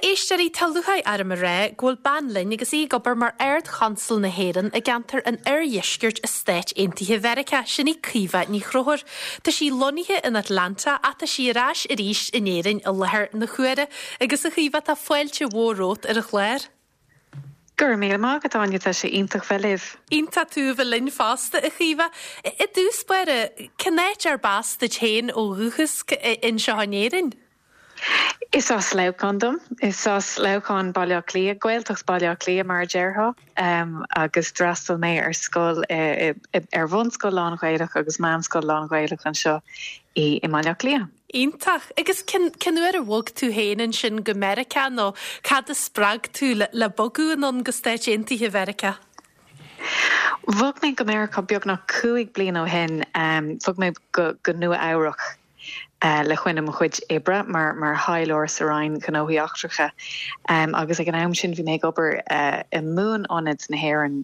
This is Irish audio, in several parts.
éisteoirí, tá lúcháir orm a rá go bhfuil bean linn agus í ag obair mar Ard-Chonsal na hÉireann i gceantar an Oirdheiscirt i Stáit Aontaithe Mheiriceá, sin í Caoimhe Ní Chonchúir. Tá sí lonnaithe in Atlanta ach tá sí ar ais arís in Éirinn i láthair na huaire. Agus a Chaoimhe, tá fáilte mhór romhat ar an chlár. Go raibh míle maith agat, Áine, tá sé iontach bheith libh. Iontach tú a bheith linn fosta, a Chaoimhe. I dtús báire, cén áit arb as duit féin ó dhúchas anseo in Éirinn? Is as Leamhcán dom. Is as Leamhcán, Baile Átha Cliath, Gaeltacht Bhaile Átha Cliath mar a déarfá, agus d'fhreastail mé ar scoil, ar bhunscoil lán-Ghaelach agus meánscoil lán-Ghaelach anseo i mBaile Átha Cliath. Iontach. Agus cén uair a bhog tú féin ansin go Meiriceá nó cad a spreag tú le bogadh anonn go Stáit Aontaithe Mheiriceá? Bhog mé go Meiriceá beagnach 5 bliana ó shin. Bhog mé go Nua Eabhrac. le coinne mo chuid oibre mar mar thaidhleoir sa Roinn Gnóthaí Eachtracha agus ag an am sin bhí mé ag obair i mBuan-Ionad na hÉireann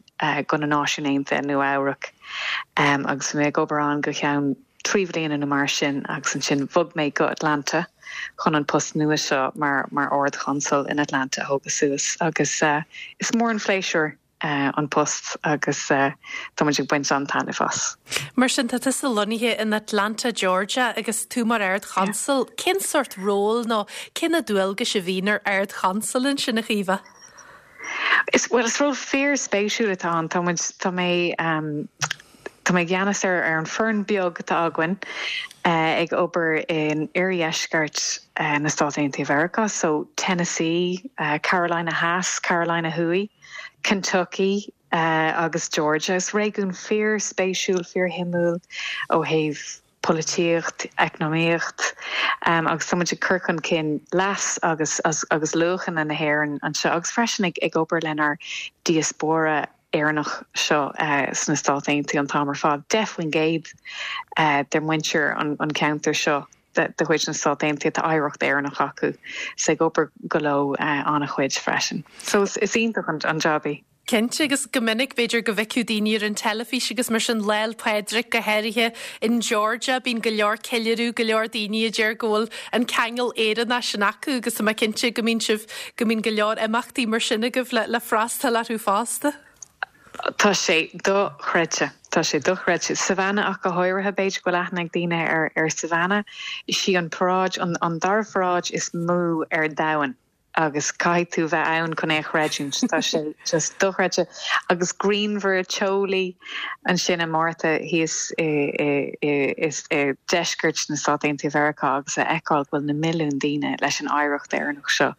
do na Náisiúin Aontaithe i Nua Eabhrac agus bhí mé ag obair ann go ceann 3 bhliana nó mar sin agus ansin bhog mé go Atlanta chun an post nua seo mar mar Ard-Chonsal in Atlanta a thógadh suas agus is mór an phléisiúr an post agus tá muid ag baint an-taitneamh as. Mar sin, tá tusa lonnaithe in Atlanta, Georgia agus tú mar Ard-Chonsal. Cén sórt ról nó cé na dualgais a bhíonn ar Ard-Chonsal ansin, a Chaoimhe? Is, bhuel, is ról fíor-spéisiúil atá ann. Tá muid, tá mé, tá mé i gceannas ar ar an foireann beag atá againn ag obair in oirdheisceart na Stát Aontaithe Mheiriceá, so Tennessee, Carolina Theas, Carolina Thuaidh. Kentucky agus Georgia. Is réigiún fíor-spéisiúil, fíor-shuimiúil ó thaobh polaitíocht, eacnamaíocht agus tá muid ag cur chun cinn leas agus agus luachanna na hÉireann anseo agus freisin ag ag obair lenár diaspóra Éireannach seo sna Stáit Aontaithe an t-am ar fad. 10% de mhuintir an cheantair seo de chuid na Stát Aontaithe, tá oidhreacht Éireannach acu, so ag obair go leo an-chuid freisin. So is iontach an jab é. Cinnte, agus go minic b'fhéidir go bhfeicfeadh daoine ar an teilifís agus mar sin Lá 'le Pádraig go háirithe in Georgia, bíonn go leor ceiliúradh, go leor daoine a deir go bhfuil an ceangal Éireannach sin acu agus tá mé cinnte go mbíonn sibh, go mbíonn go leor imeachtaí mar sin agaibh le le freastal orthu fosta. Tá sé dochreidte. Tá sé dochreidte. Savannah ach go háirithe, b'fhéidir go bhfuil aithne ag daoine ar ar Savannah. Is í an paráid, an an dara pharáid is mó ar domhan agus caithfidh tú bheith ann chun é a chreidiúint. Tá sé just dochreidte. Agus grianmhar, teolaí ansin i Márta thíos i i i i i deisceart na Stát Aontaithe Mheiriceá agus a fheiceáil go bhfuil na milliúin daoine leis an oidhreacht Éireannach seo.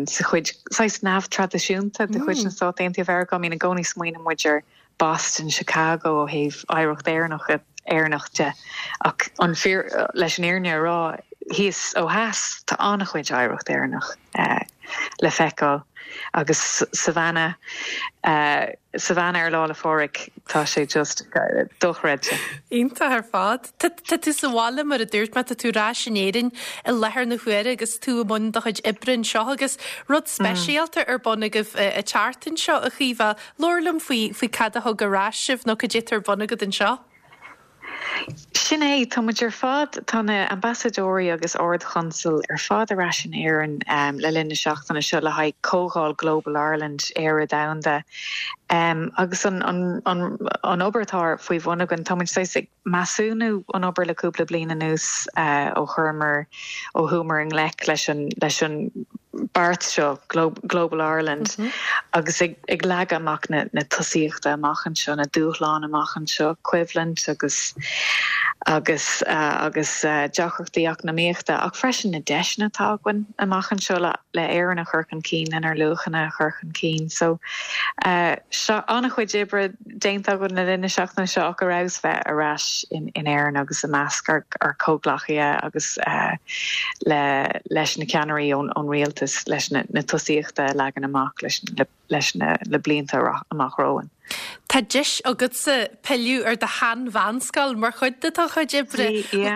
sa chuid saghas neamhthraidisiúnta de chuid na Stát Aontaithe Mheiriceá. I mean, i gcónaí smaoineann muid ar Boston, Chicago ó thaobh oidhreacht Éireannach Éireannach de ach an fíor leis an fhírinne a rá thíos ó theas tá an-chuid oidhreacht Éireannach le feiceáil agus Savannah Savannah ar Lá 'le Phádraig tá sé just dochreidte. Iontach ar fad. Tá tú sa bhaile mar a dúirt mé, tá tú ar ais in Éirinn i láthair na huaire agus tú i mbun do chuid oibre anseo agus rud speisialta ar bun agaibh an tseachtain seo, a Chaoimhe. Labhair liom faoi faoi cad a thug ar ais sibh nó cad é atá ar bun agat anseo. Sin é, tá muid ar fad, tá na Ambasadóirí agus Ard-Chonsail ar fad ar ais in Éirinn le linn na seachtaine seo le haghaidh Comhdháil Global Ireland, Éire Domhanda. Agus an an obair atá faoi bhun againn, tá muid saghas ag measúnú an obair le cúpla bliain anuas ó chuireamar, ó chuamar i ngleic leis an, leis an beart seo, Global Ireland, agus ag ag leagadh amach na na tosaíochta amach anseo, na dúshláin amach anseo, coimhlint agus agus agus deacrachtaí eacnamaíochta ach freisin na deiseanna atá againn amach anseo le le Éirinn a chur chun cinn, lenár luachanna a chur chun cinn. So, seo an-chuid oibre déanta againn le linn na seachtaine seo ach ar fheabhas bheith ar ais in Éirinn agus i measc ár comhghleacaithe agus le leis na ceannairí ón rialtas leis na tosaíochta a leagan amach leis leis na blianta amach romhainn. Tá deis agatsa pilleadh ar do shean-mheánscoil mar chuid de do chuid oibre.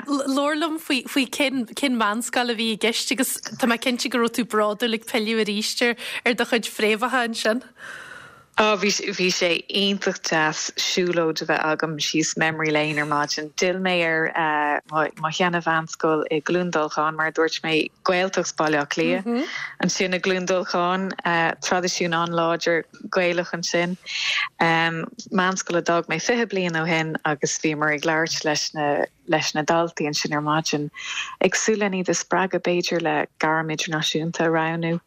Labhair liom faoi faoi cén cén mheánscoil a bhí i gceist agus tá mé cinnte go raibh tú bródúil ag pilleadh arís ar ar do chuid fréamhacha ansin. Ó, bhí, bhí sé iontach deas siúlóid a bheith agam síos Memory Lane ar maidin. D'fhill mé ar mo, mo sheana-mheánscoil i gCluain Dolcáin, mar a dúirt mé, Gaeltacht Bhaile Átha Cliath. Ansin i gCluain Dolcáin, traidisiún an-láidir Gaelach ansin. Meánscoil a d'fhág mé 20 bliain ó shin agus bhíomar ag labhairt leis na, leis na daltaí ansin ar maidin, ag súil len iad a spreagadh b'fhéidir le gairm idirnáisiúnta a roghnú.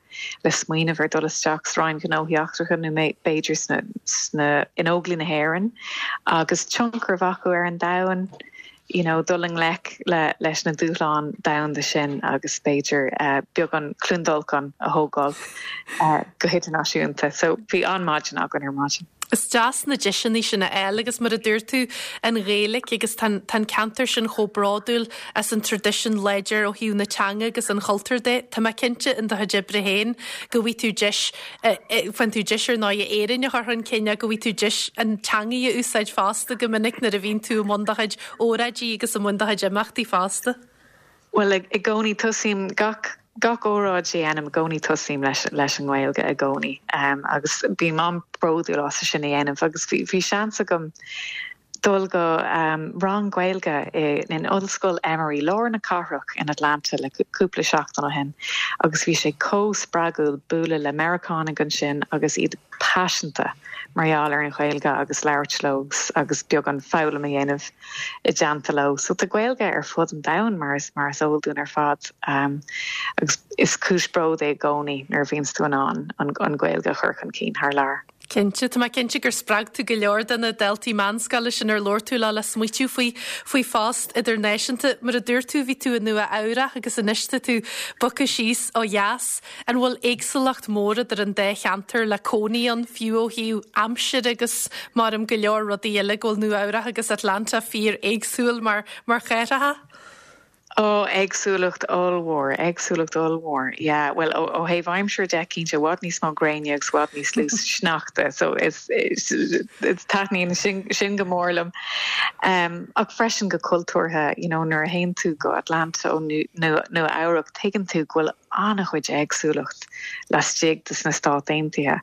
le smaoineamh ar dul isteach sa Roinn Gnóthaí Eachtracha nó b'fhéidir sna, sna, in Óglaigh na hÉireann agus tionchar a bheith acu ar an domhan, you know, dul i ngleic le, leis na dúshláin domhanda sin agus b'fhéidir beagán Cluain Dolcáin a thógáil go hidirnáisiúnta. So bhí an-maidin againn ar maidin. Is deas na deiseanna sin a fháil agus mar a dúirt tú, an Ghaeilge agus tá an ceantar sin chomh bródúil as an traidisiún láidir ó thaobh na teanga agus an chultúir de. Tá mé cinnte in do chuid oibre féin go bhfaighidh tú deis, faigheann tú deis ar ndóigh Éirinn a chur chun cinn ach go bhfaighidh tú deis an teanga a úsáid fosta go minic nuair a bhíonn tú i mbun do chuid óráidí agus i mbun do chuid imeachtaí fosta. Bhuel, i gcónaí tosaím gach, gach óráid a dhéanaim, i gcónaí tosaím leis, leis an nGaeilge i gcónaí. Agus bím an-bhródúil as sin a dhéanamh agus bhí, bhí seans agam dul go rang Gaeilge i, in Ollscoil Emory, lár na cathrach in Atlanta le cúpla seachtain ó shin agus bhí sé chomh spreagúil bualadh le Meiriceánaigh ansin agus iad paiseanta mar gheall ar an Ghaeilge agus labhairt leo agus, agus beagán foghlaim a dhéanamh. i dteannta leo. So tá Gaeilge ar fud an domhain mar is mar is eol dúinn ar fad agus is cúis bróid é i gcónaí nuair a bhíonns tú in ann an Ghaeilge a chur chun cinn thar lear. Cinnte, tá mé cinnte gur spreag tú go leor de na daltaí meánscoile sin ar labhair tú leo le smaoitiú faoi faoi phost idirnáisiúnta. Mar a dúirt tú, bhí tú i Nua Eabhrach agus anois tá tú bogtha síos ó dheas. An bhfuil éagsúlacht mhór idir an dá cheantar le cónaí ann, fiú ó thaobh aimsire agus maram go leor rudaí eile, go bhfuil Nua Eabhrach agus Atlanta fíor éagsúil mar mar chathracha? Ó, éagsúlacht ollmhór, éagsúlacht ollmhór, yeah. Bhuel, ó ó thaobh aimsire de, cinnte, i bhfad níos mó gréine agus i bhfad níos lú sneachta, so is is is taitníonn sin sin go mór liom. Ach freisin go cultúrtha, you know, nuair a théann tú go Atlanta ó Nua Nua Eabhrac, tuigeann tú go bhfuil an-chuid éagsúlacht laistigh de sna Stáit Aontaithe,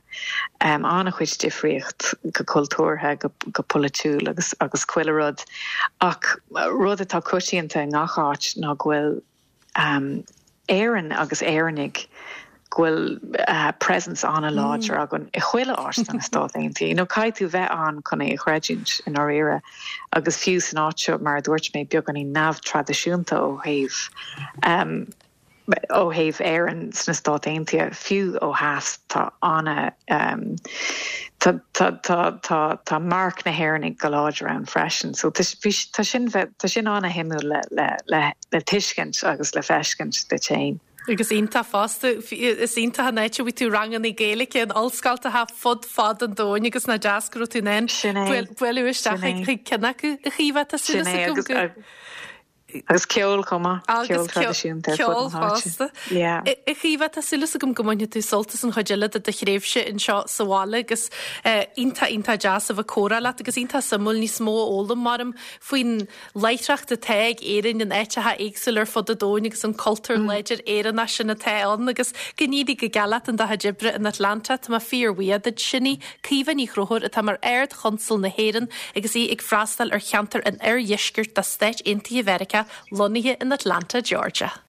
an-chuid difríocht go cultúrtha, go polaitiúil agus agus chuile rud. Ach rud atá coitianta i ngach áit ná go bhfuil Éirinn agus Éireannaigh, go bhfuil presence an-láidir againn i chuile áit de na Stáit Aontaithe. You know, caithfidh tú bheith ann chun é a chreidiúint i ndáiríre. Agus fiú san áit seo, mar a dúirt mé, beagáinín neamhthraidisiúnta ó thaobh Ó thaobh Éireann sna Stáit Aontaithe, fiú ó theas, tá ana, tá, tá, tá, tá, tá marc na hÉireannaigh go láidir ann freisin. So tá, bhí, tá sin, tá sin ana-shuimiúil le, le, le, le tuiscint agus le feiscint duit féin. Agus iontach fosta, is iontach an áit a bhfaighidh tú ranganna Gaeilge in ollscoltacha fud fad an domhain agus nach deas go raibh tú in ann bualadh isteach chuig ceann acu. A Chaoimhe, tá súil agam go. Agus ceol chomh maith, ceol traidisiúnta ar fud na háite. Yeah. A Chaoimhe, tá súil agam go mbainfidh tú sult as an chuid eile de do thréimhse anseo sa bhaile agus iontach, iontach deas a bheith ag comhrá leat agus iontach suimiúil níos mó a fhoghlaim maram faoin láithreacht atá ag Éirinn in áiteacha éagsúla ar fud an domhain agus an cultúr láidir Éireannach sin atá ann agus go n-éirí go geal leat in do chuid oibre in Atlanta. Tá mé fíorbhuíoch duit. Sin í Caoimhe Ní Chonchúir atá mar Ard-Chonsal na hÉireann agus í ag freastal ar cheantar an oirdheiscirt de Stáit Aontaithe Mheiriceá, lonnaithe in Atlanta, Georgia.